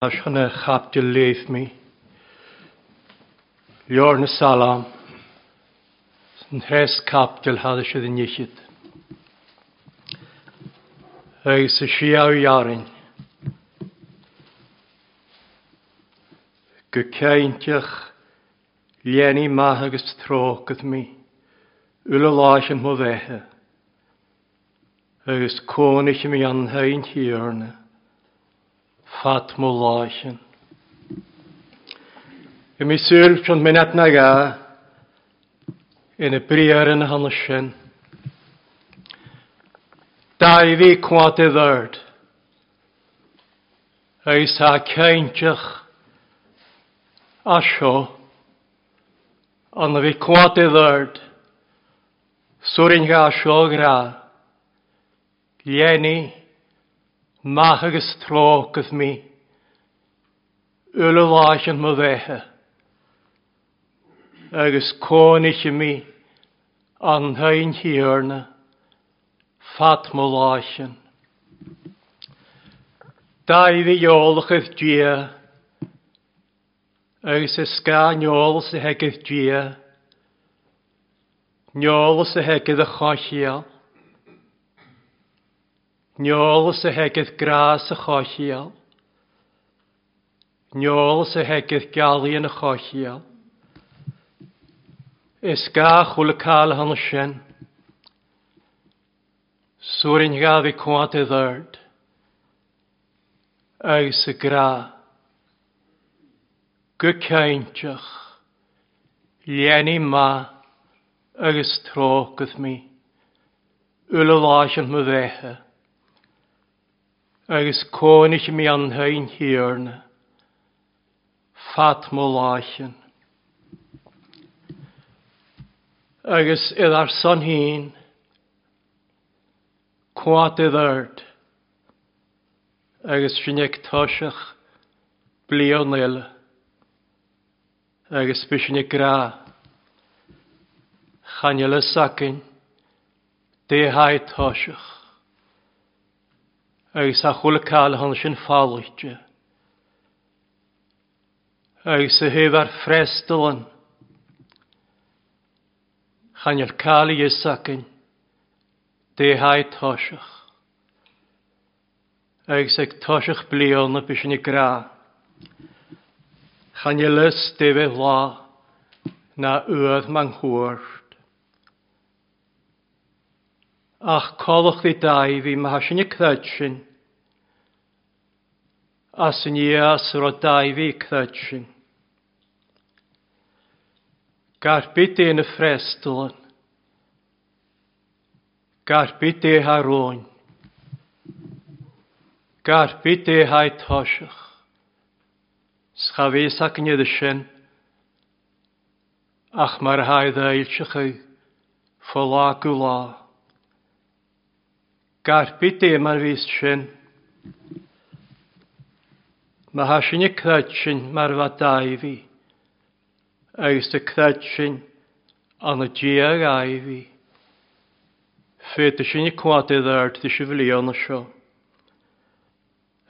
Chun a chaiptil léif mé. Leabhar na Salm, san threas caiptil thada siad in fhichead. Agus a siadh dhearainn. Go cinnteach léanaí maith agus trócaid mé, uile láithreán mo bheithe. Agus cónaithe mé an Thigh Thiarna fad mo láithrean. Bhí mé súil chun minat na ga ina briathar ina hionadh sin. Dáibhí cuat i bhord agus tá cinnteach as seo an a bhí cuat i bhord Suarin gha seo ghra, Lenny, maith agus trócaibh mí, uile láithreán mo bheithe, agus cónaithe mí an Thigh Thiarna fad mo láithrean. Daimhidh eolachaibh Dia, agus is gá n-eolas a theigeadh Dia, n-eolas a theigeadh a chothchiall, n-eolas a theigeadh grá sa chothchiall, n-eolas a theigeadh gealaí ina chothchiall. Is gá chuile cáil a shonas sin. Suarin gha bhí cuat i dhord. Agus a grá. Go cinnteach, leanaí maith agus trócaibh mé, uile láithreán mo bheithe, agus cónaithe mé an Thigh Thiarna fad mo láithrean. Agus iad ár son féin, Cuat i dord agus sinn ag toiseach bliain eile agus bhí sinn ag grá. Chan fhuil fhios againn dé haghaidh toiseach agus a chuala cáil a tháinig sin fáilte agus a thaobh ar freastal an Chan fhuil cáil a fhios againn dé haghaidh toiseach. Agus ag toiseach bliana bhí sinn ag grá. Chan fhuil fhios dé bheith lá ná uaimh man chuairt. Ach comhlachtaí Dáibhí má thá sinn ag creid sin, as an fhios a raibh Dáibhí ag creid sin. Gar bith dé na freastalann. Gar bith dé thar róin. Gar bith dé haghaidh toiseach. 'S cha bhfios againn iad sin ach mar a haghaidh d'fhoilseachaidh fá lá go lá. Gar bith dé mar bhíos sin. Má thá sinn ag creid sin mar a bheadh Dáibhí, agus do creid sinn ann a Dia Dháibhí, féadfaidh sinn ag cuat i dtaird duit an bhliana seo,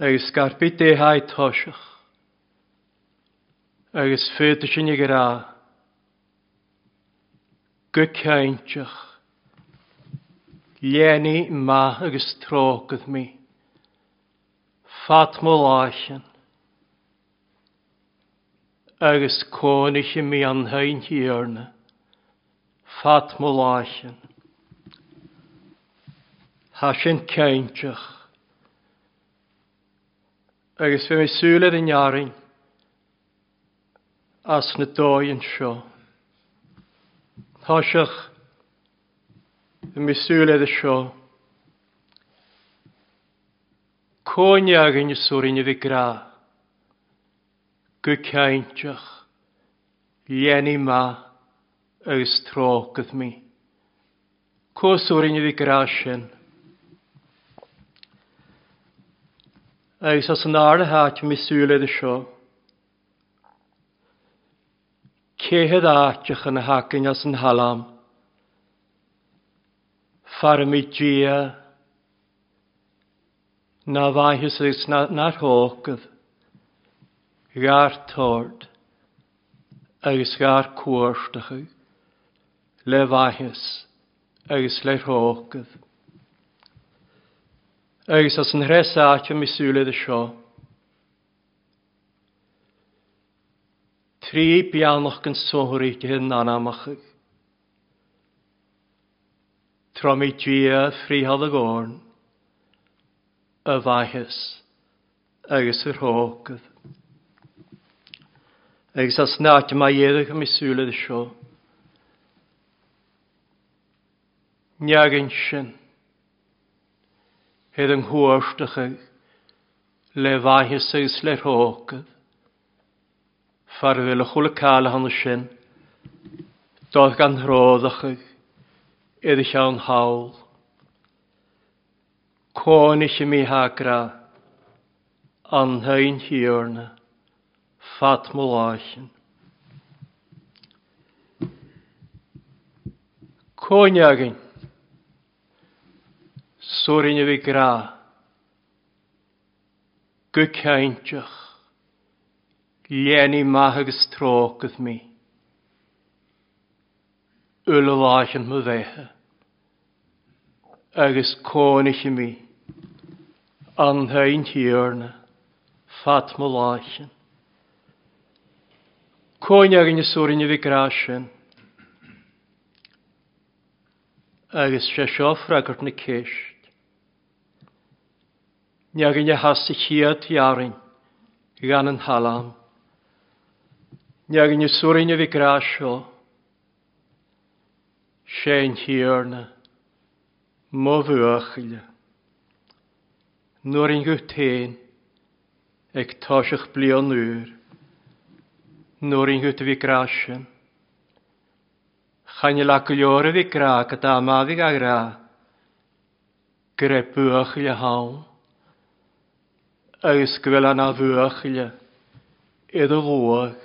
agus gar bith dé haghaidh toiseach, agus féadfaidh sinn ag rá go cinnteach, Léanaí maith agus trócaibh mé, fad mo láithrean, agus cónaithe mé an Thigh Thiarna, fad mo láithrean. Thá sin cinnteach. Agus bhí mé súil ar an fhearainn as na dóigh anseo. Toiseach, bhí mé súil air seo. Cónaí againn is orainn a bhí grá. Go cinnteach, léanaí maith agus trócaibh mé. Cos orainn a bhí grá sin. Agus as an ard a háit mé súil air seo. Cé hiad áiteacha na hacainn as an thalam? Fearaimid Dia ná bhfaighis agus nár thógfadh. Dhár tord agus dhár cuartachadh le mhaitheas agus le thrócaibh. Agus as an threis áit a míosúla de seo. Trí beannach den sothuigthe n-anamachaidh. Tráth Dia frítheadh a gcorn, a mhaitheas agus a thrócaibh. Agus as an áit a mbeidh éadach i míosúla de seo. Neagain sin. Ar an chuartachaidh le mhaitheas agus le thrócaibh. Fear a bhfuil a chuile cáil cheana sin, dóibh gan thródachaidh ar a cheann thall. Cónaithe mí-thagra an Hain Thiarna fad mo láicheann. Cóin againn. Suairinn a bhí grá. Go cainteach. Léanaí maith agus trócaibh mé. Uile láicheann mo bheithe. Agus cónaithe mé. An Hain Thiarna fad mo láicheann. Cóin againn a suairinn a bhí grá sin. Agus sé seo freagairt na ceist. Ní againn a theas sa chéad dheartháin gan an thallann. Ní againn a suarainn a bhí grá seo. Sé an Tiarna mo bhuachaill. Nuair an guth féin ag toiseacht bliain úr. Nuair an guth a bhí grá sin. Chan fhuil ach go leor a bhí ag rá go dá mba bhí ag rá go raibh buachaille ann agus go bhfuil ana bhuachaille i do luath.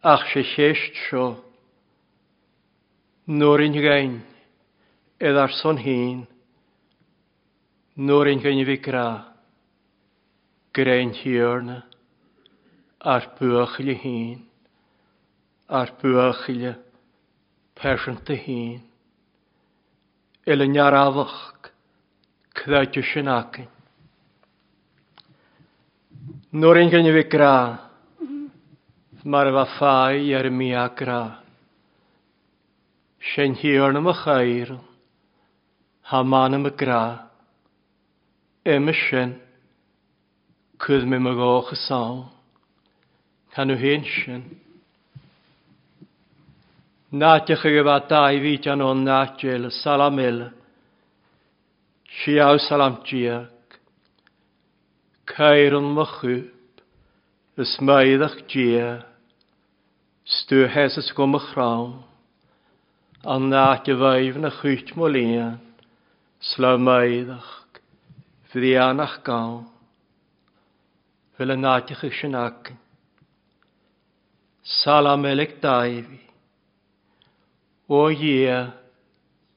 Ach sé cheist seo nuair an ghein i dár son féin nuair an ghein a bhí ag rá go raibh an Tiarna ár buachaille féin. Ár buachaille pearsanta féin. Uile neamhreamhach creidte sin againn. Nuair an ghin a bhí grá mar a bheadh fáidh ar an mbia grá. Sé an Thiarna mo chaoran, thá m'anam ag grá. Uime sin, cuir mé mo dhóchas ann. Tá nó féin sin. Náiteacha go bhfad Dáibhí an ón náit eile, salam eile. Siao salam diac. Caireann mo chup, is maíodach Dia, 's tú sheasas go mo chrann, an áit a bhfaighim na chuit mo líon, 's le maíodach, bhrianach gann. Bhfuil an áiteacha sin againn. Salam Eilig Dáibhí. Ó a Dhia,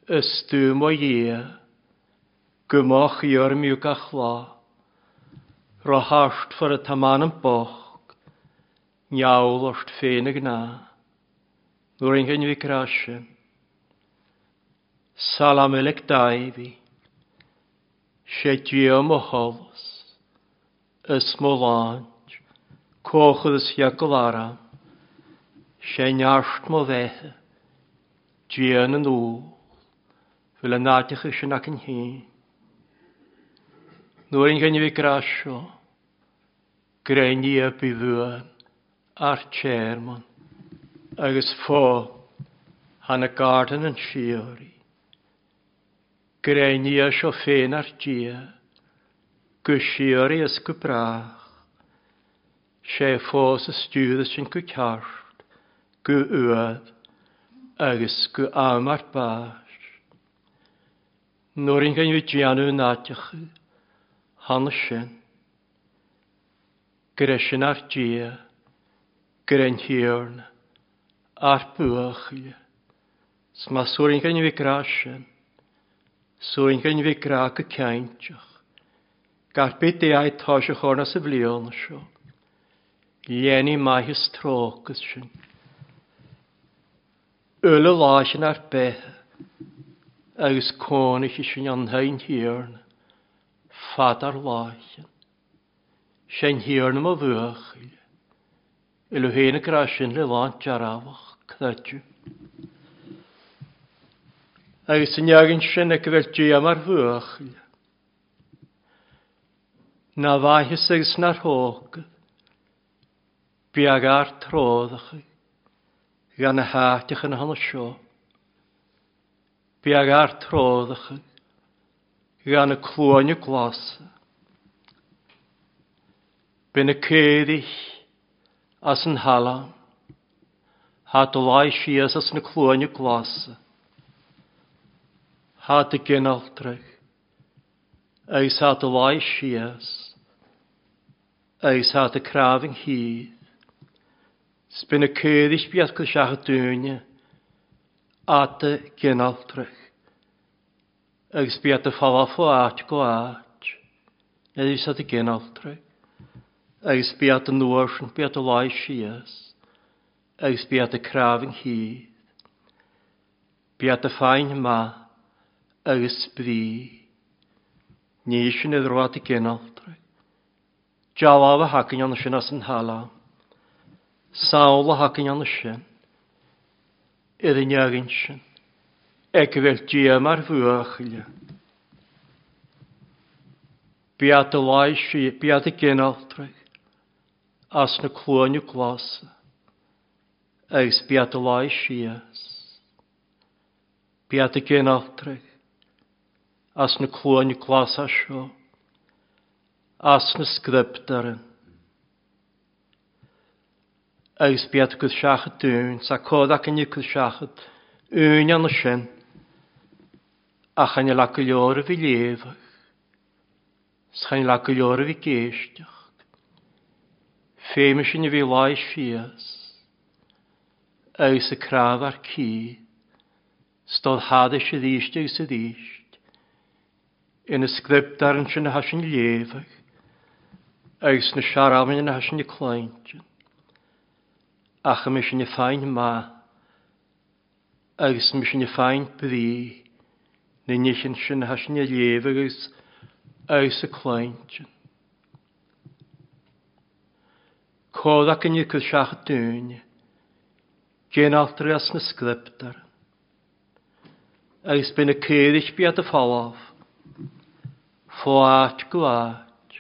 is tú mo Dhia, go mba chíor miú gach lá. Ro thart for atá m'anam bocht, ngeall ort féin a gnáth. Nuair an ghin mhic rá sin. Salam Eilig Dáibhí. Sé Dia mo sholas. Is mo láint, cóchad is fiacail aram, sé neart mo bheithe, Dia na ndúl, bhfuil an áiteacha sin againn féin. Nuair an ghin a bhí grá seo, gréine bí bhuan ár tearmann agus fo thána garden an síoraí. Gréine seo féin ár Dia, go síoraí is go brách. Sé fós a stiúradh sinn go ceart, go uaidh agus go am ár báis. Nuair an gheimhridh déanamh in áiteacha cheana sin, go raibh sin ár Dia, go raibh an Tiarna ár buachaille. 'S má suairn mhic grá sin, suairn mhic grá go cinnteach, gar bith de aghaidh toiseach orna sa bhliain seo. Léanaí maith is trócas sinn. Uile lá sin ár beithe agus cónaithe sinn an Hain Thiarna fad ár láicheann. Sé'n Thiarna mo bhuachaill. Uile féin ag rá sin le lán dearfach, creideamh. Agus an leagan sin ag bheith Dia mar bhuachaill. Ná mhaitheas agus nár thóg. Beag ár tródacha gan na háiteacha na hana seo. Beag ár tródacha gan na cluaine glasa. B'in na caoirigh as an thalamh. Thá do láimh síos as na cluaine glasa. Thá do ginealtrach agus thá do láimh síos agus thá do crámh an chíd. 'S b'in na caoirigh beag go seacha dúinne ata ginealtrach agus bíodh do phalaf ó áit go áit agus ata ginealtrach agus bíodh do nuair bíodh do láimh síos agus bíodh do crámh an chíd. Bíodh do fáin maith agus brí. Ní sin idir ata ginealtrach. Dealbh a thacainn ann sin as an thalamh. Samhail a thacainn ann sin. Ar an leagan sin. Ag a bheith Dia mar bhuachaill. Beata láimhsí, beata ginealtraigh as na cluaine glasa agus beata láimh síos. Beata ginealtraigh as na cluaine glasa seo, as na scrioptúir. Agus beata go seachad dúinn, sa cód acainne go seachad uainn ann sin, ach chan fhuil ach go leor a bhí léamhach, 's chan fhuil ach go leor a bhí géisteach. Féime sin a bhí láimh síos, agus a crámh ar cíth, 's dod thadais arís agus arís, ina scrioptúir ansin atá sin léamhach, agus na searamain atá sin ag cluintin. Ach a mbeidh sin ag fáin maith, agus a mbeidh sin ag fáin brí, na nithe sin atá sin ag léamh agus agus ag cluintin. Comhrac inniu go seacht dúinne, déan altraí as na scrioptúir. Agus beidh na caoirigh bead a folamh, fó áit go áit.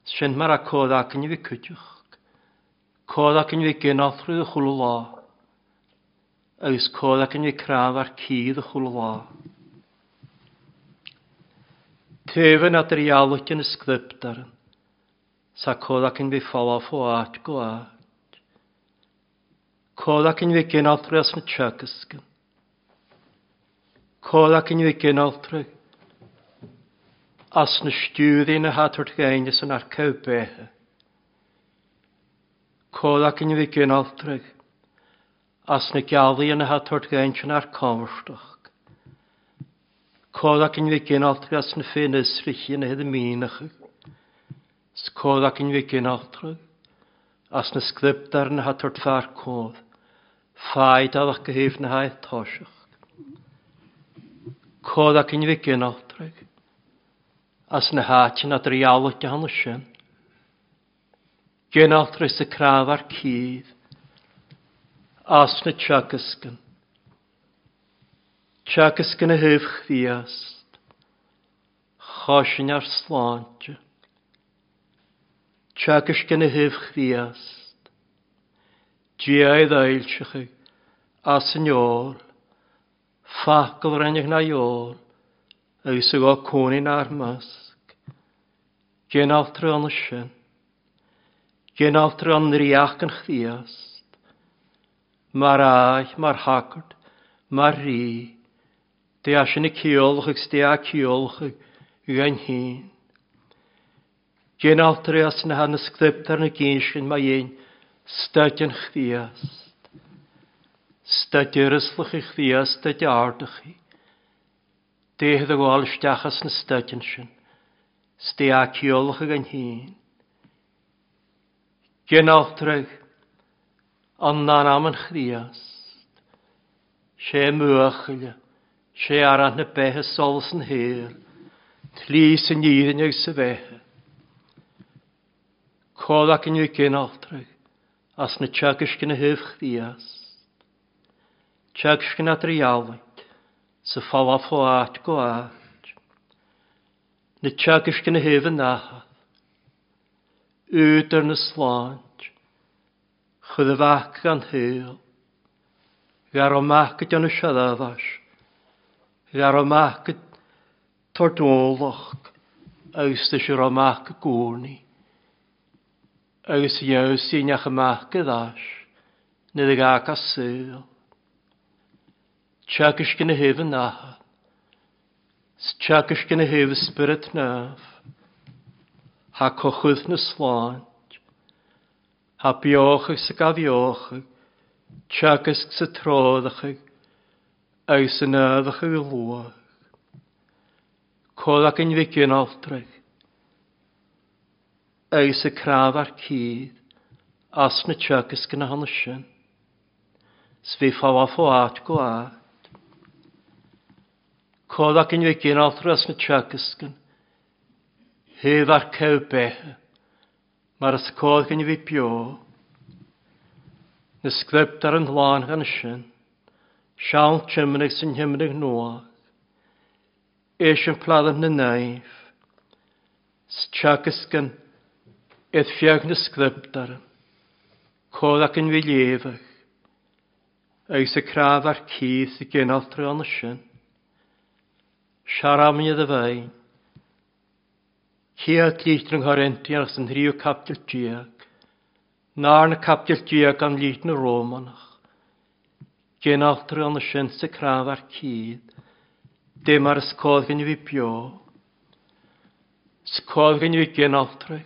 Sin mar a comhrac inniu cuideachta. Comhrac inniu ag altraí do chuile lá. Agus comhrac inniu crann ar cíor do chuile lá. Taobhann idir dhealbh na scrioptúir. Sa comhrac inniu folamh fó áit go áit. Comhrac inniu ag altraí as na teagascann. Comhrac inniu ag altraí as na stiúirí na hatairt ghéine san ar cowbéithe. Comhrac inniu ag altraí as na gealaí na hatairt ghéine san ar comharstach. Comhrac inniu ag altraí as na féinisrichi na hid míneacha. 'S comhrac inniu ag altraí as na scrioptúir na hatairt fear cód. Fáidhealach go thaobh na háith toiseach. Comhrac inniu ag altraí as na háiteanna dríálach de hana sin. Ginealtraí sa crámh ar cíd, as na teagascann. Teagascann a thaobh Chríost, choisinn ár sláinte. Teagascann a thaobh Chríost, Dia i dtoilseachaigh, as an eol, facal rinneadh na eol, agus a gá cónaí nár measc. Ginealtraí an sin. Ginealtraí an ríocht an Chríost. Mar áith, mar shagart, mar rí, dé sin a ceolach agus dé a ceolach gan féin. Ginealtraí as na hana scrioptúir na gcinn sin mar dhéin staid an Chríost. Staid uireaslach an Chríost, staid ardachaí. Déithe do ghabháil isteach as na staideanna sin. 'S dé a ceolach gan féin. Ginealtraigh an anam an Chríost. Sé mbuachaille, sé arán na beithe solas an shaoil, tslí san fhírinne agus sa bheatha. Comhlac inniu ginealtraigh as na teagaisc ina thaobh Chríost. Teagaisc ina dtrialaigh sa phalaf ó áit go áit. Na teagaisc ina thaobh an Athar. Údar na sláint. Chuir a mhac gan shaol. Ghearr amach go déanamh searbhais. Ghearr amach go tordólach agus do siar amach go gcónaí. Agus dheamhan síneach amach go ais nuair a ghabh a saol. Teagaisc ina thaobh an Athar. 'S teagaisc ina thaobh Spiorad Naomh. Thá cochúth na sláint. Thá beochaidh 's ag athbheochaidh, teagasc 's ag treorachaidh agus san ábhachaidh a luach. Comhrac an mhic in altraigh agus ag cnámh ár cíd as na teagasc ina hionadh sin. 'S bhí fabhar fó áit go áit. Comhrac an mhic in altraigh as na teagasc in thaobh ár céadh beithe. Mar is cóir go bhí beo. Na script ar an lán gan sin. Seán Tiomnaigh san Thiomnaigh Nua. Eiseamplar na naomh. 'S teagascann iad feadh na script ar an. Comhrac an bhí léamhach. Agus a crámh ar cíos i gcineál tráthnóna sin. Searamne do bheinn. Chéad litir an Choirintianach san thríú caibidil déag, nár na caibidil déag an litir na Rómánach. Ginealtar an sin sa crann ar cíd, dé mar is cóir go bhí beo. 'S cóir go bhí ginealtraigh,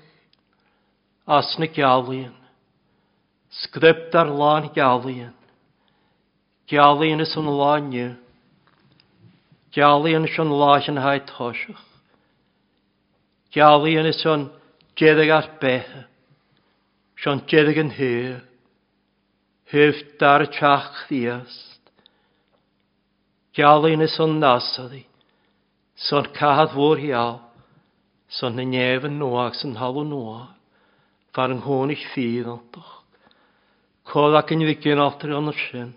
as na gealaíon. Script ar lán gealaíon. Gealaíon is an lá inniu. Gealaíon is an lá sin haghaidh toiseach. Gealaíon is an deireadh ar beithe. Is an deireadh an shaol. Thaobh dara teach Chríost. Gealaíon is an Nasaraí. 'S an cathair mhór gheal. 'S an na neamh nua agus an thalamh nua. Fear an chónaí fíreantach. Comhrac an mhic in altar ionad sin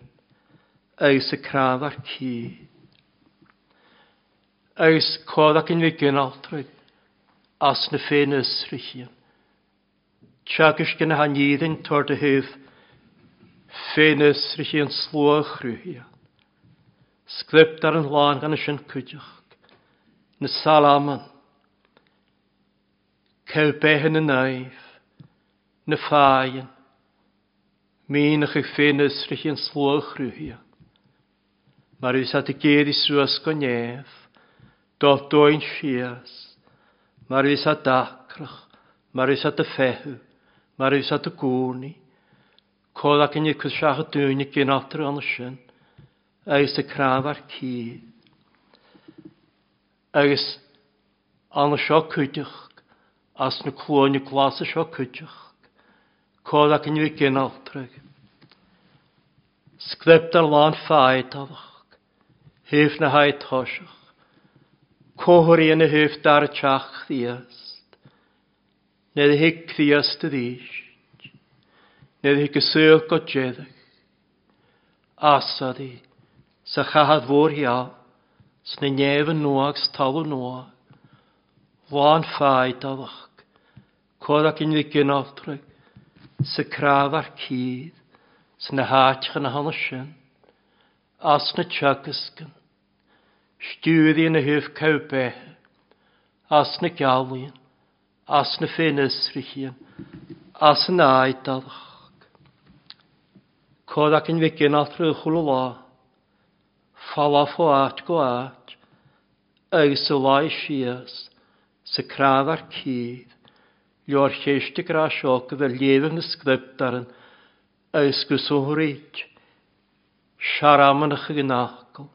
agus a cnámh ar cíor. Agus comhrac an mhic in altraigh as na féinfhiosruithe. Teagaisc ina haníorainn tabhair do thaobh féinfhiosruithe an slua a chruthaíonn. Script ar an lán gan sin cuideachta. Na Salaman. Céadh beithe na naomh. Na fáidheann. Míneach ag féinfhiosruithe an slua a chruthaíonn. Mar bhí said ag éirí suas go neamh, dul dóin síos, mar bhí said dacrach, mar bhí said ag feitheamh, mar bhí said i gcónaí. Comhrac inniu cos seacha dúinne ginealtar ann sin, agus ag cnámh ár cíor. Agus ann seo cuideachta, as na cluaine glasa seo cuideachta, comhrac inniu ginealtraigh. Scriptar lán feadálach, thaobh na haghaidh toiseach, comharthaí ina thaobh dara teach Chríost. Nuair a thig Críost arís, nuair a thig a saol go deireadh, Asari, sa chathair mhór gheal, sna néamha nua agus talamh nua, lán feadálach, comhrac in bhí ginealtraigh, sa crámh ar cíor, sna háiteacha na hana sin, as na teagascann, stiúraí ina thaobh cabh beithe, as na gealaíonn, as na féinfhiosruithe, as an áidealach. Comhrac in bhí ginealtraigh chuile lá, falá fó áit go áit, agus sa lá síos, sa crámh ar cíor, leor chéiste grá seo go bhfuil léamh na script ar an agus go sonraíd searamannach ag an fhocal,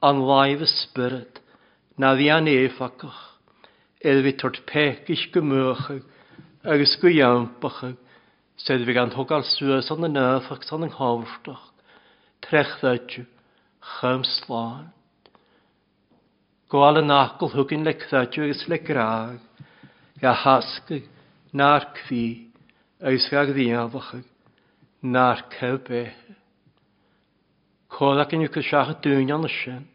an láimh a spiorad, ná bhí an éifeachtach, ar bhí tabhairt péicis go mbuachadh agus go iompachadh. Said bhí gan tógáil suas an an agus an thábhachtach, trechdaite, chum slán. Gabháil an acaill thugainn le creideamh agus le grá, ga thascaigh nár crí agus ga ghníomhachaigh nár cur béithe. Comhlac inniu go seacha dúinn ann sin,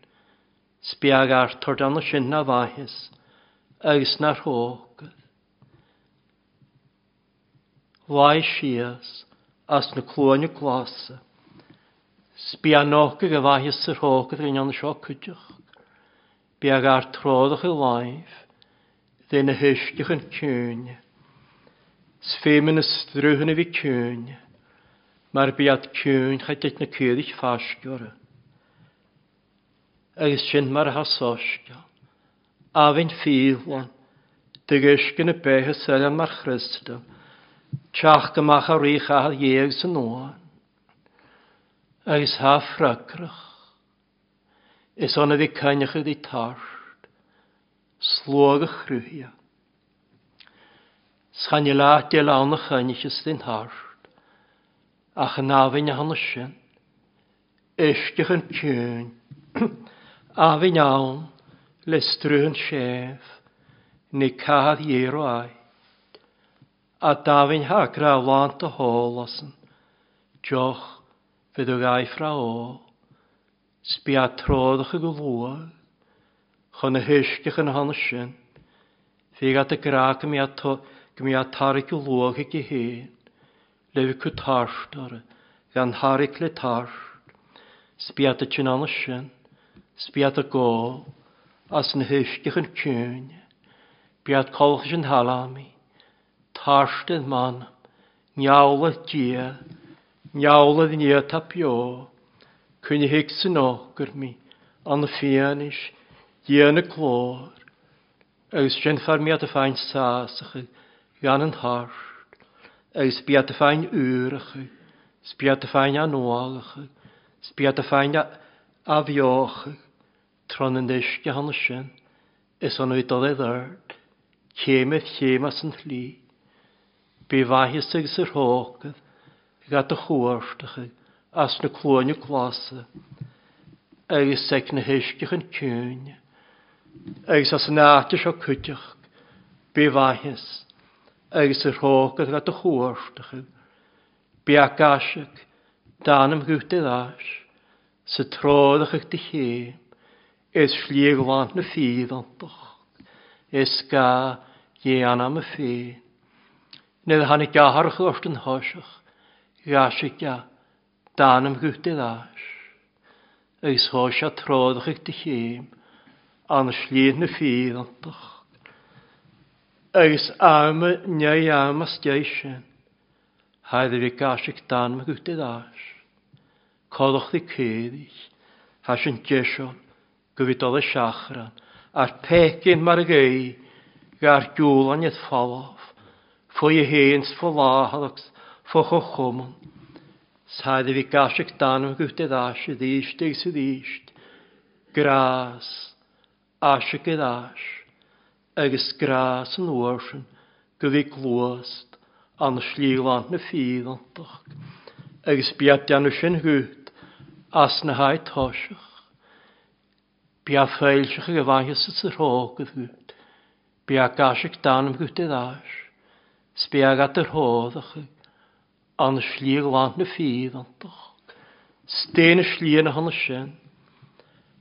's beag Arthur ann sin ná mhaitheas agus nár thógad. Luigh síos as na cluaine glasa. 'S beannóchaidh a mhaitheas ar thógad ar an ann seo cuideachta. Beag ár tródach i láimh de na huisce chun ciúine. 'S féimhe na strúthanna bhí ciúine, mar b'iad ciúin cha dtit na caoirigh faisce orthu. Agus sin mar atá soiscéal. Abhainn fiadhlann, de uisce na beithe soiléir mar chriostal, teacht amach a rí chathair dhéag san uain. Agus thá freagrach. Is ann a bhí coinneach ag tart, sluag a chruthaithe. 'S chan fhuil áit eile ann a choinneochas den tart, ach an abhainn a thána sin, uisce chun ciúin, abhainn ann le struth an séimh, ní cathair dhé ait. A d'abhainn thá grá lánta thall asan, deoch fé do ghaibh fra ól. 'S bia tródacha go luath chun na huisce chun na sin. Bhí agat a grá go mbeadh go mbeadh tarrac go luath aici féin, le bheith cu tart orthu, gan tharrac le tart. 'S bia duit in ann sin, 's bia do gol as na huisce chun ciúine. Bia colchais an thalamh, tart id m'anam, neamhlaith Dia, neamhlaith Dia atá beo, coinnigh san fhocair mé, an fianaise, Dia na glóir, agus déanfar mé do féin sásacha gan an tart, agus bia do féin úracha, 's bia do féin anuálacha, 's bia do féin athbheocha, tráth na n-uisce cheana sin, is ionadh dul i dord, céim ar chéim as an tslí. Bí mhaitheas agus ar thógaibh gach do chuartacha as na cluaine glasa agus ag na huisce chun ciúine, agus as an áit seo cuideachta, bí mhaitheas agus ar thógaibh gach do chuartacha. Bí a gcaiseach d'anam guth ar ais sa tródach do chéim, is slí ghlan na fíontach, is gá dhéanam a féin. Nuair a tháinig athair ort an thoiseach, ghaisfidh a d'anam guth ar ais, agus thóg sé tródach do chéim an slí na fíontach. Agus am ndiaidh am as deich sin, thaidhg a bhí gaisfidh d'anam guth ar ais. Codlachtaí caoirigh, thá sin deiseal go bhí dul i seachrán, ar péicín mar ghaoth gar giúlainn id folamh, faoi a fhéin 's fo láthair agus fo chomhchumann. 'S thaidhg a bhí gaisfidh d'anam guth ar ais arís agus arís, grás, aisig ar ais, agus grás an uair sin go bhí gluast an slí ghlan na fíontach, agus b'iad déanamh sin chút as na haghaidh toiseach. B'iad foilseach ag a mhaitheas is a thrócaire chút, b'iad gaiscic d'anam chút ar ais, 's b'iad at ar thóracha an slí ghlan na fíontach. 'S dé na slí ina shon sin,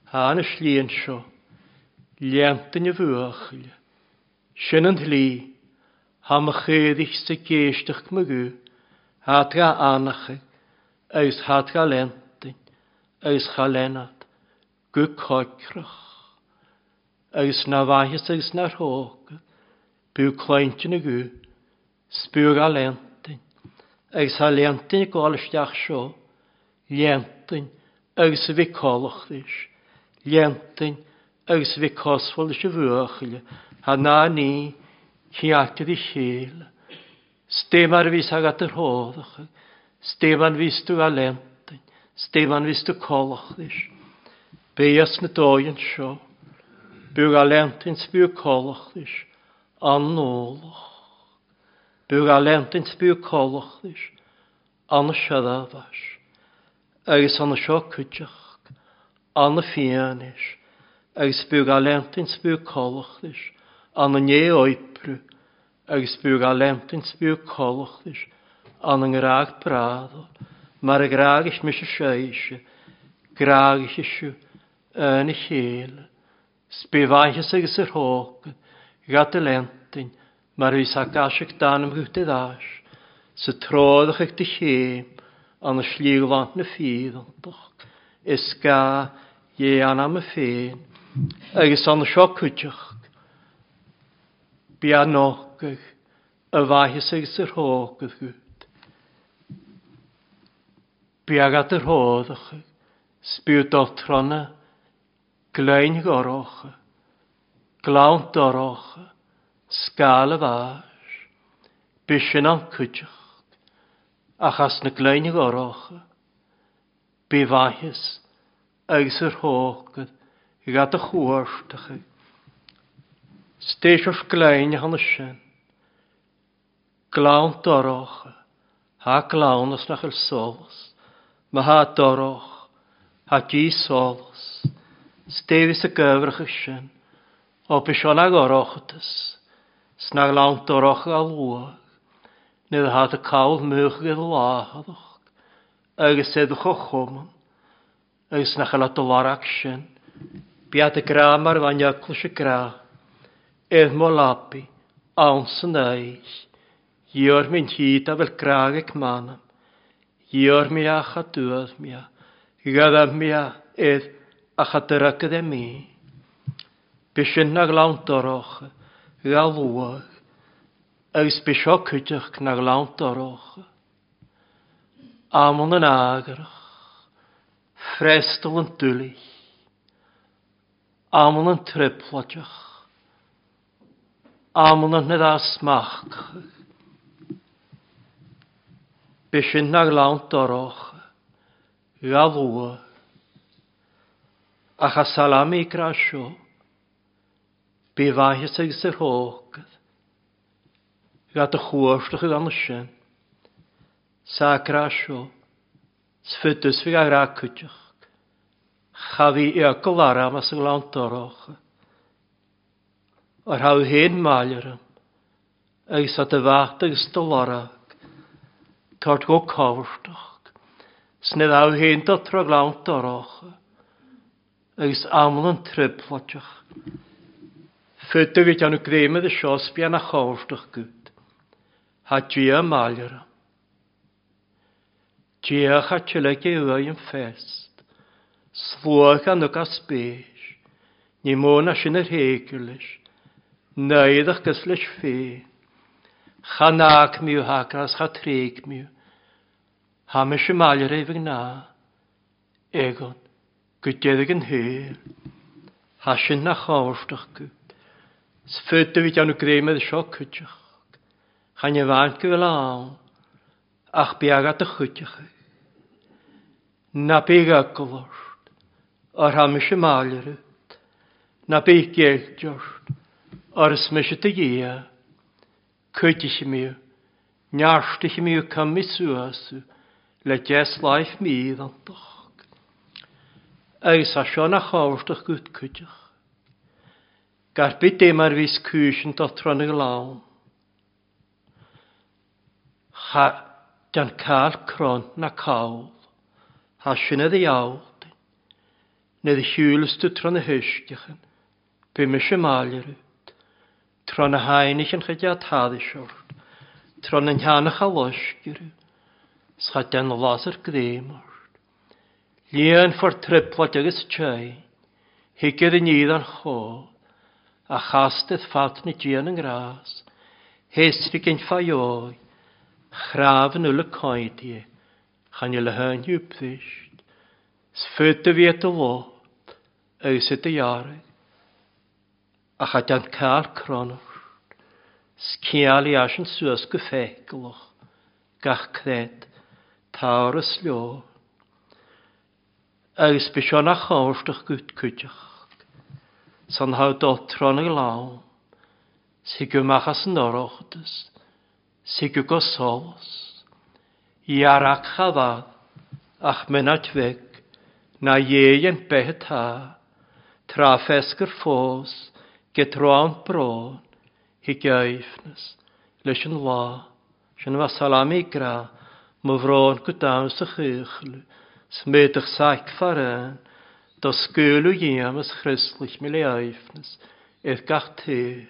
thá na slí anseo, léannta na bhuachaille. Sin an tslí, thá mo chaoirigh 's ag éisteacht mo ghuth, thá trá anachaidh agus thá trá léanntain agus cha léanfad go coicreach. Agus ná mhaitheas agus nár thógfad, b'fhiú cluinte na guth, 's b'fhiú dhá léanntain, agus thá léanntain ag gabháil isteach seo, léanntain agus a bhí comhlachtais, léanntain agus a bhí cosmhail leis an bhuachaill, thá ná ní ceart ar a chéile. 'S dé mar a bhíos agat ar thóracha, 's dé mar a bhíos tú á léanntain, 's dé mar a bhíos tú comhlachtais. Bíos na dóigh anseo, b'fhiú dhá léanntain 's b'fhiú comhlachtais, an ualach. Bíodh á leantaint 's bíodh comhlacht leis, ana seadámhais, agus ana seo cuideachta, ana fianaise, agus bíodh á leantaint 's bíodh comhlacht leis, ana né-oibriú, agus bíodh á leantaint 's bíodh comhlacht leis, ana ngrádh brádhal, mar a ghrágais mise sibhse, grágaidh sibh ana chéile. 'S bí mhaitheas agus ar thóg ghat a leantain mar bhí sa gcaiseac d'anam gut i dtais sa tródach ag do chéim an slí ghlan na fídhantach is ga dhé anam a féin agus an seo cuideach bí a nócadh a mhaitheas agus ar thóg gut. Bí agat ar thódach 's bí dul trona Gleann dhorcha, gleann dorcha, scáil a bháis, b'shin an cuideacht, ach as na gleann dhorcha, bí mhaitheas agus ar thógad gha do chuartacha. 'S d'éis gleann a thána sin, gleann dorcha, thá gleann as nach bhfuil solas, má thá dorcha, thá díth solas. 'S déibh sa gcuibhreacha sin, ó b'seo ná dhorchadas, 's ná gleann dorcha a luadh, nuair athá do cabhail múchadh i do láthach, agus i do chomhchumann, agus nach bhfuil do lorg sin. Bead a grá mar bheadh eaglais a grá, ar mo leapaidh, ann san oích'. Iarr mé an tí dá bhfuil grá ag m'anam. Iarr mé ach a dtuath mé, ghabh mé air ach a dtracad é mé. B'shin na gleann dorcha, gha luath, agus b'seo cuideachta na gleann dorcha. Amann an eagrach, freastal an doiligh, amann an trioblóideach, amann an dá smachtach. B'shin na gleann dorcha, gha luath, ach a salami grá seo, bí mhaitheas agus ar thógad, gha do chuartach gan sin. Sa grá seo, 's fud is bhí a ghrá cuideachta. Cha bhí fhiacail arm as an ngleann dorcha. Ar thabh féin maille orm, agus tá do bheacht agus do lorg tabhairt go cábhartach. 'S ní thabh féin do tra gleann dorcha, agus amann an trioblóideach. Fud a bhí déanamh greime de seo 's bean a chábhartach gut. Thá Dia maille orm. Dia cha tuilleadh uaidh an fest. Sluagh an uc as spéis. Ní mó ná sin ar théigir leis. Naomhadh gus leis féin. Cha n-aicmiú thaca is cha tréigmiú. Thá mise maille roimh an ngnáth. Egon, go deireadh an shaoil. Thá sin nach ábhartach go. 'S fud a bhí déanamh greime de seo cuideachta. Chan i bhfad go bhfuil ann ach bí agat do chuideachta. Ná bí eagal ort, óir thá mise maille ort. Ná bí geilt ort, óir is mise do Dhia. Cuidigh mé, neartaigh mé coimeád suas le deich sláith mídhantach. Agus tá seo ina thábhachtach gut cuideach. Gar bith é mar bhíos cúiseann do tráth na gclann. Cha dean cáil crann ná call. Thá sin i do dheabhaltain. Nuair a shiúlas tú tráth na huisceachan, beidh mise maille ort. Tráth na haonaigh an chuid atá ort, tráth na ndeannach a loisceadh, 's cha dean lasair greim ort. Líonfar trioblóid agus teine, thig ar an fhíor an chomh, a chastad fad na dian an ngrás, théasfaidh an fadheoidh, chrámh an uile coimhthígh, chan fhuil a hainniú brist, 's fud a bhí i do lot agus i do dhearg. Ach a dean cáil crann ort, 's ciall í eisean suas go feiceálach, gach creat, táthar is leo. Agus b'é seo nach ábhartach gut cuideachta, san thá dul tráth na gclann, 's thig amach as an Oireachtas. Sigu go solas. Iarach chafad, ach mynat bheg, na dhéan beth atá, trá fesgur fós, get rán brón, hi geifnes, leis an lá, sin bha salami gra, mo bhrón go domhan sa chuchlu, sméadach saic farán, do sgúlu dhéam is chrislich mi le eifnes, ith gach taobh.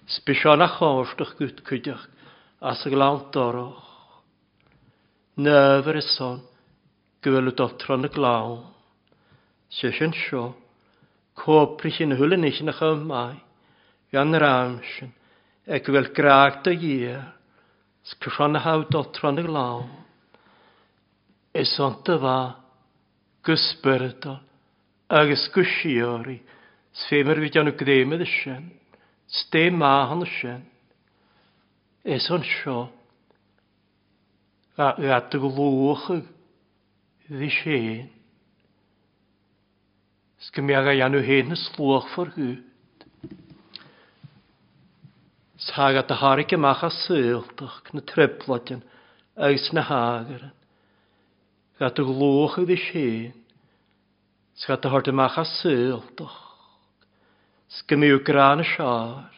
Sbiseán a chóirteach gut cuideach as a glann dorach. Nöfar is son go bhfuil dul tron na glann. Sé sin seo, cóprich in hula nísin a chum maith, gan ram sin, ag go bhfuil grág do Dhia, 's cruan a thabh dul tron na glann. Is ionta bha, go spioradal agus go síoraí, 's fé mar bhí déanamh gréime de sin, 's dé maith an sin. Is anseo gha do ghlúchadh bhí féin. 'S go mbeadh a dhéanamh féin is luachmhar dhuit. 'S thagadh do tharrac amach as saoltach na trioblóidean agus na hagaran. Gha do ghlúchadh bhí féin. 'S gha do thabhairt amach as saoltach. 'S go mbeadh grá na seár.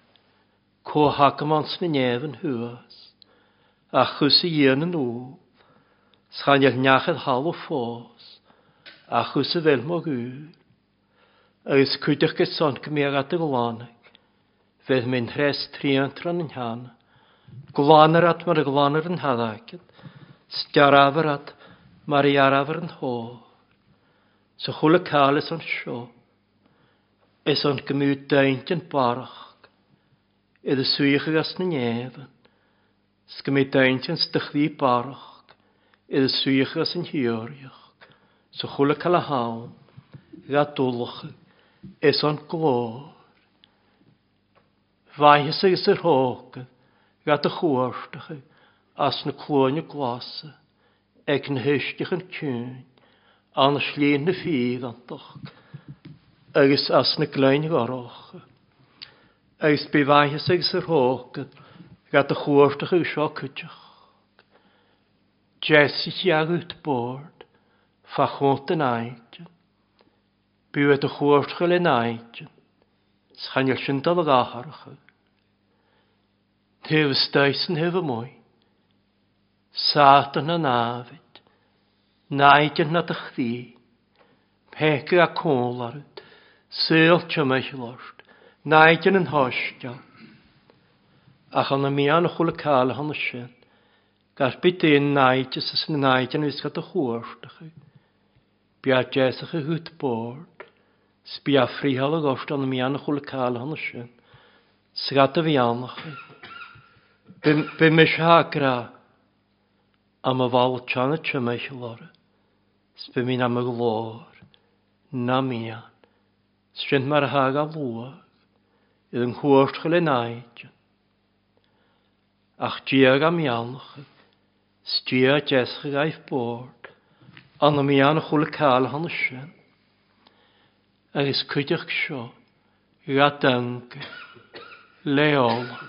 Comhthacamán sna neamhain thuas. Ach chús a dhéanamh an úll. 'S chan fheil neach ar thalamh fós. Ach chús a bhfeil mo dhúil. Agus cuideachta san go mbeadh at a ghlanadh. Bheadh mé threis triantran an cheana. Glanar at mar a ghlanar an hadaicead. 'S dearfar at mar a dhearfar an hór. Sa chuile cáil is anseo. Is an go mbeadh daingean barrach. I do suíochadh as na neamhan. 'S go mbeadh daingean 's do chroí barrach. I do suíochadh as an thíoraíocht. Sa chuile cáil a ham. Gha dulachadh. Is an glór. Mhaitheas agus ar thógadh gha do chuartachadh as na cluaine glasa ag na huisceachan ciúin an slí na fíreantach agus as na gleann ghorracha. Agus bí mhaitheas agus ar thógadh gha do chuartachadh seo cuideach. Deisithe agat bord fá chónt an áite. B'fhiú é do chuartachadh le n-áite. 'S chan fheil sin dul ag atharcha. Taobh istigh 's an taobh amuigh. Sátan na námhaid. Náideann na do chroí. Peaca a cúl ort. Saol timcheall ort. Náideann an shoisceal. Ach an mian a chuala cáil cheana sin. Gar bith d'aon náideas is na náideann a bhíos do chuartachadh. Bia deasach a thút bord. 'S bia friothála ort an mian a chuala cáil cheana sin. 'S gad a bheannachadh. B'é mise a grá. Am a bhall teanna timcheall orra. 'S b'é mín am a ghlór. Ná mian. 'S sin mar a thagadh a luach. I an chuartachadh le náideann. Ach Dia ga mbeannachadh. 'S Dia deasach gaibh bord. An mian a chuala cáil cheana sin. Agus cuideachta seo ga dteanga. Le ola.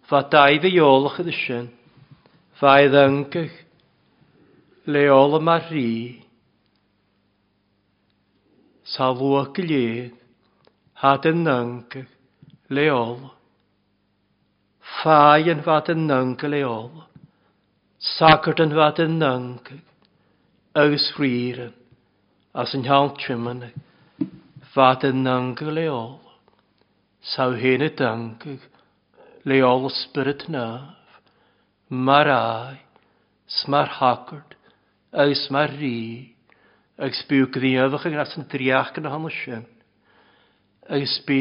Bha daimh a eolach iad sin. Bha i dteanga. Le ola mar rí. Sa luach go léir. Thad i nteanga. Le ola. Faigheann bhad i nteanga le ola. Sagart an bhad i nteanga. Agus ríran. As an cheann tiomána. Bhad i nteanga le ola. Sa fhéin i dteanga. Le ola spiorad naomh. Mar aghaidh. 'S mar shagart. Agus mar rí. Agus bíodh gníomhach as an dréacht ina hionadh sin. Agus bí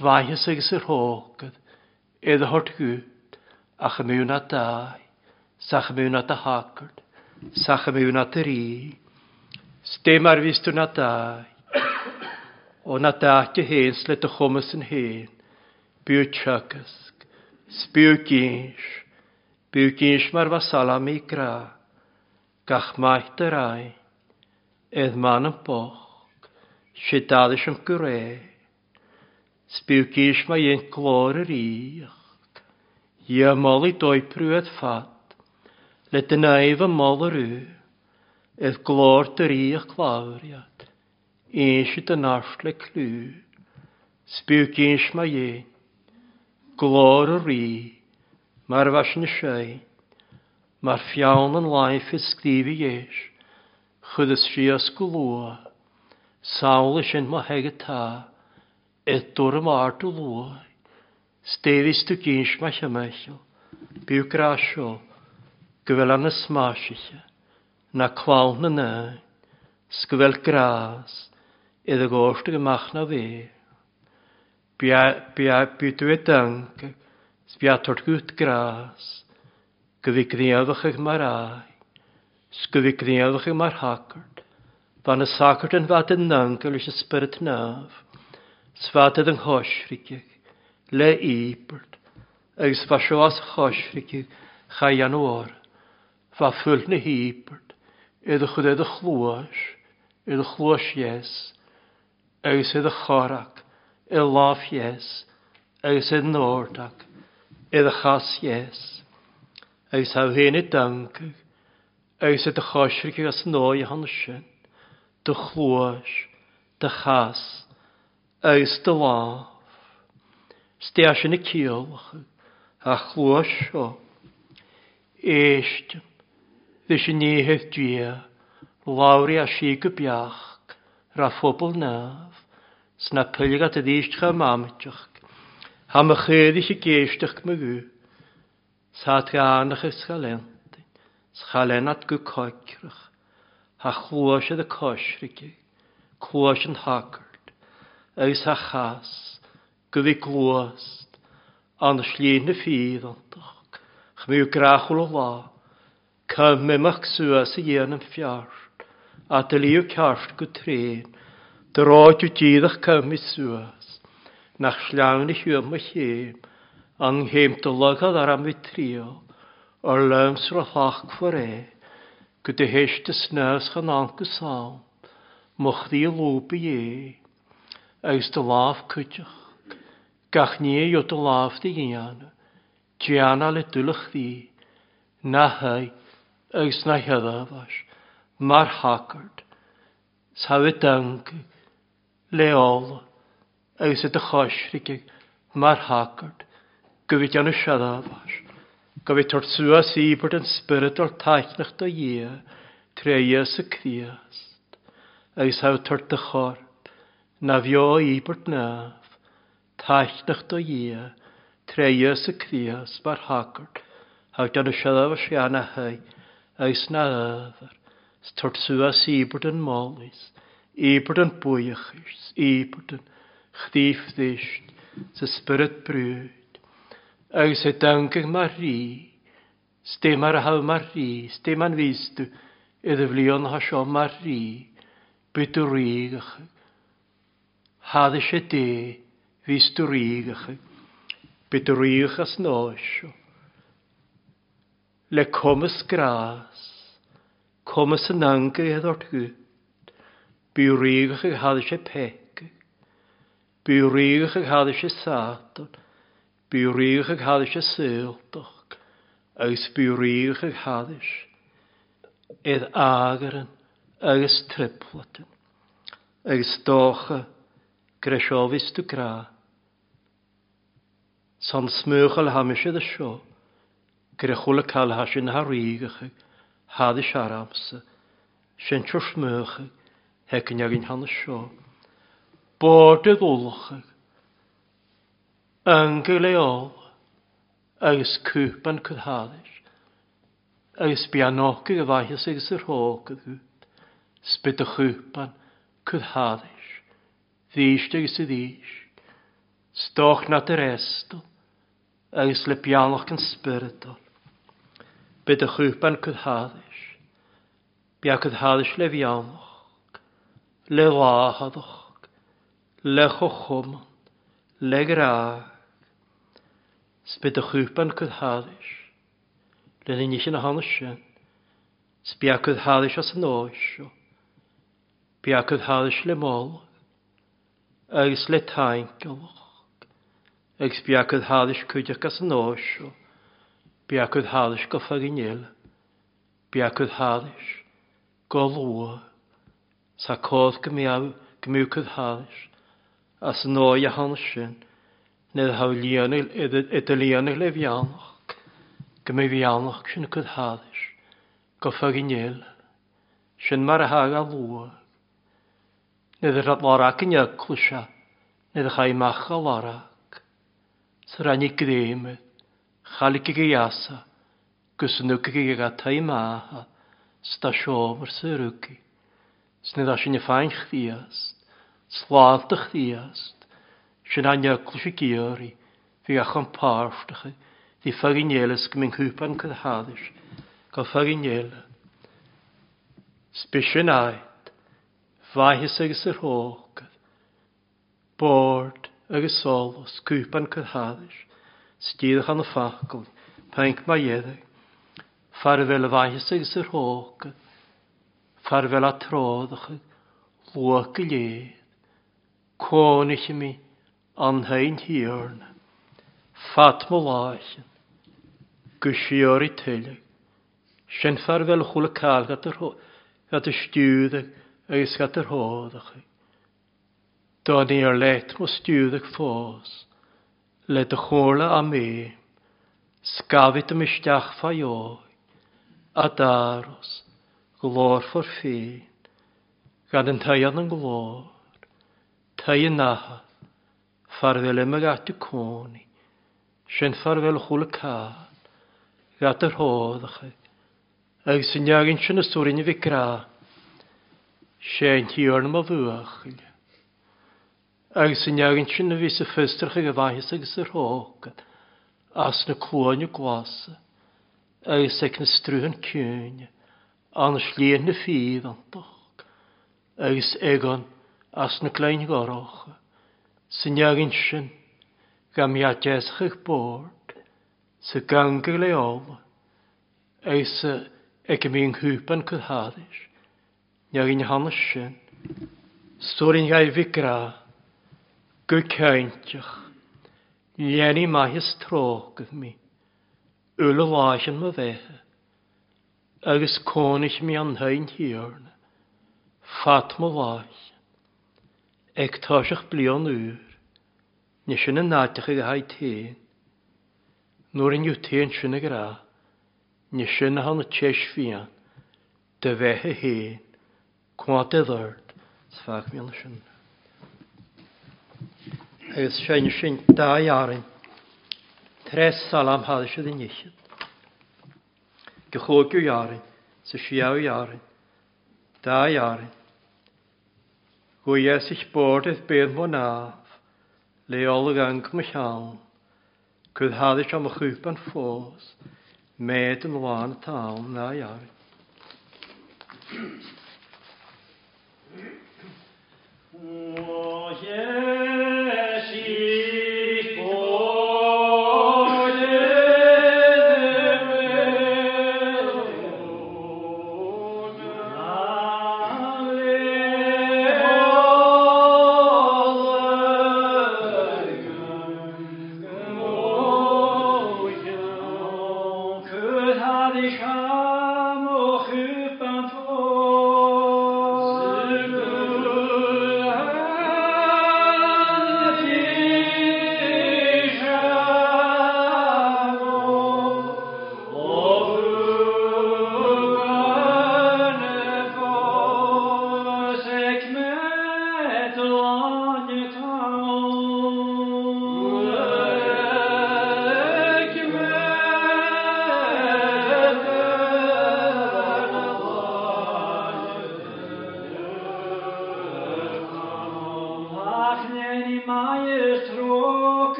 mhaitheas agus ar thógad é do thabhairt dhuit, ach a mbeadh ná d'aghaidh, 's ach a mbeadh ná do shagart, 's ach a mbeadh ná do rí. 'S dé mar bhíos tú ná d'aghaidh. Ó ná d'áite féin 's le do chumas an féin, bíodh teagasc, 's bíodh gins, bíodh gins mar bheadh salami grá, gach maith do roinn, ed m'anam bocht, sé d'fhadais am go réidh. 'S bíodh gís má dhein glór a ríocht. Dhia mollaidh d'oibriú ad fad, le do naomh a moladh Ith glór do ríogh cladhairead, Inse do neart le clú, 'S bíodh inse má dhéin, Glór a rí, mar a bheadh sin sé, Mar pheann an laimh is scríobh dheis, Chuireas síos go luath, Samhlaigh sin mo thigh atá, Ith dúram ard a luaith, 'S d'éirigh tú gins mo chimeall, Bíodh grá seo, go bhfuil ann is maisithe, Ná clann na n-éan, 's go bhfuil grás i do ghort ag amach ná bhéal. Bí tú i dteanga, 's bí á tabhairt gut grás, Go bhí gníomhach mar aghaidh, 's go bhí gníomhach mar shagart, Bha na sagairt an bhfad i n-ancail leis an Spiorad Naomh, 's bhfad iad an choisricfidh le íobairt, agus bha seo as choisricfidh cha dhéanamh orthu, bha fuil na híobairt i do chur i do chluais, i do chluais dheas, agus i do chorrac, i lámh dheas, agus i n-ordach, i do chas dheas, agus thá féin i dteangaidh, Agus i do choisricfidh as an dóigh a shon sin, do chluais, do chas, agus do lámh. 'S dea sin a ciallacha, a chluais seo. Éistim, leis an oíche Dia, labhraidh a sí go beacht, ra phobal Naomh, 's na poilg at arís chomh maimiteach, Thá mo chaoirigh ag éisteacht mo ghuth. Sa treánach is cha lentainn, 's cha lenat go coicreach, Tha chluais ar a coisricigh, cluais an shagairt, Agus tha chas, go bhí gluast, ann slí na fíreantach, Chmiú grachúil a lá, Ca m'imeacht suas a dhéanamh feart, A do liú ceart go tréan, Do ráiteadh díreach ca mhi suas, Nach sleamhain a shiúl mo chéim, An chéim do lagad ar am bhí triall, Ar liom 's ro-shlacmhar é, Go do théis do snámh 's chan ann go sam, Mo chroí lúbadh é, Agus do lámh cuideachta, Gach ní a gheobh do lámh do dhéanamh, Déanadh le dul a chroí, na haghaidh agus na headhmhais mar shagart, 's tha i dteanga le ola agus i do choisricigh mar shagart go bhí déanamh seadhmhais, go bhí tabhairt suas íobairt an spioradal taitneach do Dhia tré Íosa Críost, agus tha tabhairt do chorp ná bheo íobairt naomh, Taitneach do Dhia, tré Íosa Críost mar shagart, thá déanamh seirbhís ana thigh agus na ábhar, 's tabhairt suas íobairt an mholaidh, 's íobairt an buíochais, 's íobairt an chroí bhriste, 's a spiorad brúid, agus é daingean mar rí, 's dé mar a thabh mar rí, 's dé man bhís tú i do bhlianacha seo mar rí, bidh do ríoghacha. Thadh sé dé bhíos do ríoghacha, bidh do ríoghacha as an áis seo. Le cumas grás, cumas an angaidh ort gut, bíodh ríoghacha thadh sé peaca, bíodh ríoghacha thadh sé Sátan, bíodh ríoghacha thadh sé saoltach, agus bíodh ríoghacha thadh sé ar eagaran agus triplatan. Agus dócha go raibh seo bhíos tú grá. San smúchail tha mise do seo, go raibh chuile cail tha sin tha rígeacha, tha do searamsa, sin seo smúcha, theicinn againn tha na seo. Bord i gculacha, angail é ola, agus cúpan cur thairis. Agus bí an ócaidh a mhaitheas agus a thrócaire agat, 's bí do chúpán cur thairis, arís agus arís, 's dóch ná do fhreastal, agus le beannacht an Spioradal. Bí do chúpán cur thairis, bí á cur thairis le bheannacht, le láthaireacht, le chomhchumann, le grá, 's bí do chúpán cur thairis. Lena nithe na hana sin, 's bí acu thairis as an áis seo, bí acu thairis le moladh agus le tainceallach, agus bí acu thairis cuideachta as an áis seo. Bí a cuid thalais go faighin eile. Bí a cuid thalais go luath. Sa cás go mbeadh go mbeadh cuid thalais as an ndóigh a tháinig sin, ní raibh líonadh idir líonadh le bheannach, go mbeadh bheannach sin cuid thalais go faighin eile. Sin mar a thagadh a luath. Ní raibh lorg in eaglais ní raibh amach a lorg. Sa ráinig gréime, chailligh a dheasa gus an ucaigh ag a taidh sta seomra sa rucaigh. 'S ní raibh sin ag féin Chríost, sláinte Chríost, sin an eaglais ag iarraidh, bhí a chun páirteacha, bhí faighin eile 's go mbíonn cúpán cur thairis, go faighin eile. 'S b'shin áit, mhaitheas agus ar thógad. Bord agus solas, cúpán cur thairis, 's díreach an focal, pinc má iarraidh. Fear a bheith le mhaitheas agus ar thógad, fear a bheith le tródacha, luath go léir. Cónaithe mé an fhéin Thiarna, fad mo láicheann, go síoraí tuilleadh. Sin fear a bheith le chuile cail gat a stiúradh agus gat ar thódacha. Dá níor leat mo stiúradh fós, le do chomhairle á mé, scabhfaidh dom isteach fá dheoidh, a d'aros, glórfar féin, gan an t-aon an glór, t-aon natha, fear a bheith le mo ghat i cónaí, sin fear a bheith le chuile cán, ghat ar thóracha, Agus an leagan sin is tabharfainn a mhic grá, sé an Tiarna mo bhuachaill. Agus an leagan sin a bhí sa fiosrach ag a mhaitheas agus a thrócaire, as na cluaine glasa, agus ag na strúthan ciúine, an sliabh na fíreantach, agus ag an as na clainn dhorcha, sa leagan sin, ga mbeadh deasach ag bord, sa ganga le ola, Agus ag a mbíonn cúpán cur thairis, neamh ina theannas sin, stóirín ghaibh grá, go cinnteach, leanaí maith is trócaire mé, uile láicheann mo bheatha, agus cónaithe mé an Féin Thiarna, fad mo láicheann, ag toiseacht bliain úr, ní sin an áit a chuig a haghaidh féin. Nuair a ndiúltaíonn sin a ghrá, ní sin atá na téis fiáin do bheith a fhéin, cuat i dord, 's feadh mionna sin. Agus seinne sin dá fhearainn, tres salam thad siad in ichead. Go chúigiú fhearainn, sa séú fhearainn, dá fhearainn. Go dheas bord ith béal mo námh, le ola gang mo cheann. Cuir thairis am a chúpan fós, méid an lán atá ann ná dhearg.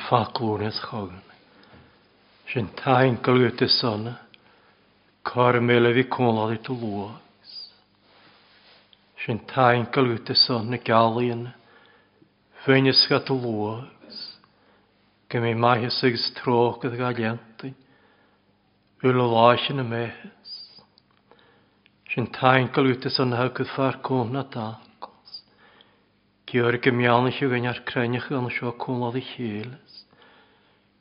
faclúnas chugainn. Sin taincail uait is sona, cár mile bhí cónláid do luas. Sin taincail uait is sona gealaíonn, féin is do luas. Go mbeidh maitheas agus trócaire dá leantain, uile lá sin a mbeathas. Sin taincail uait is sona thug fear cóna dacos. Giorra go meánach againn ar cruinneach an seo cónláid a chéile.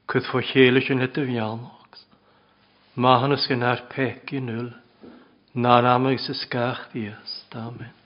Cuid fá chéile sin le do bheannacht. Maithiúnas go nár peacaí in iúl, nár am agus is gach Dias. Amen.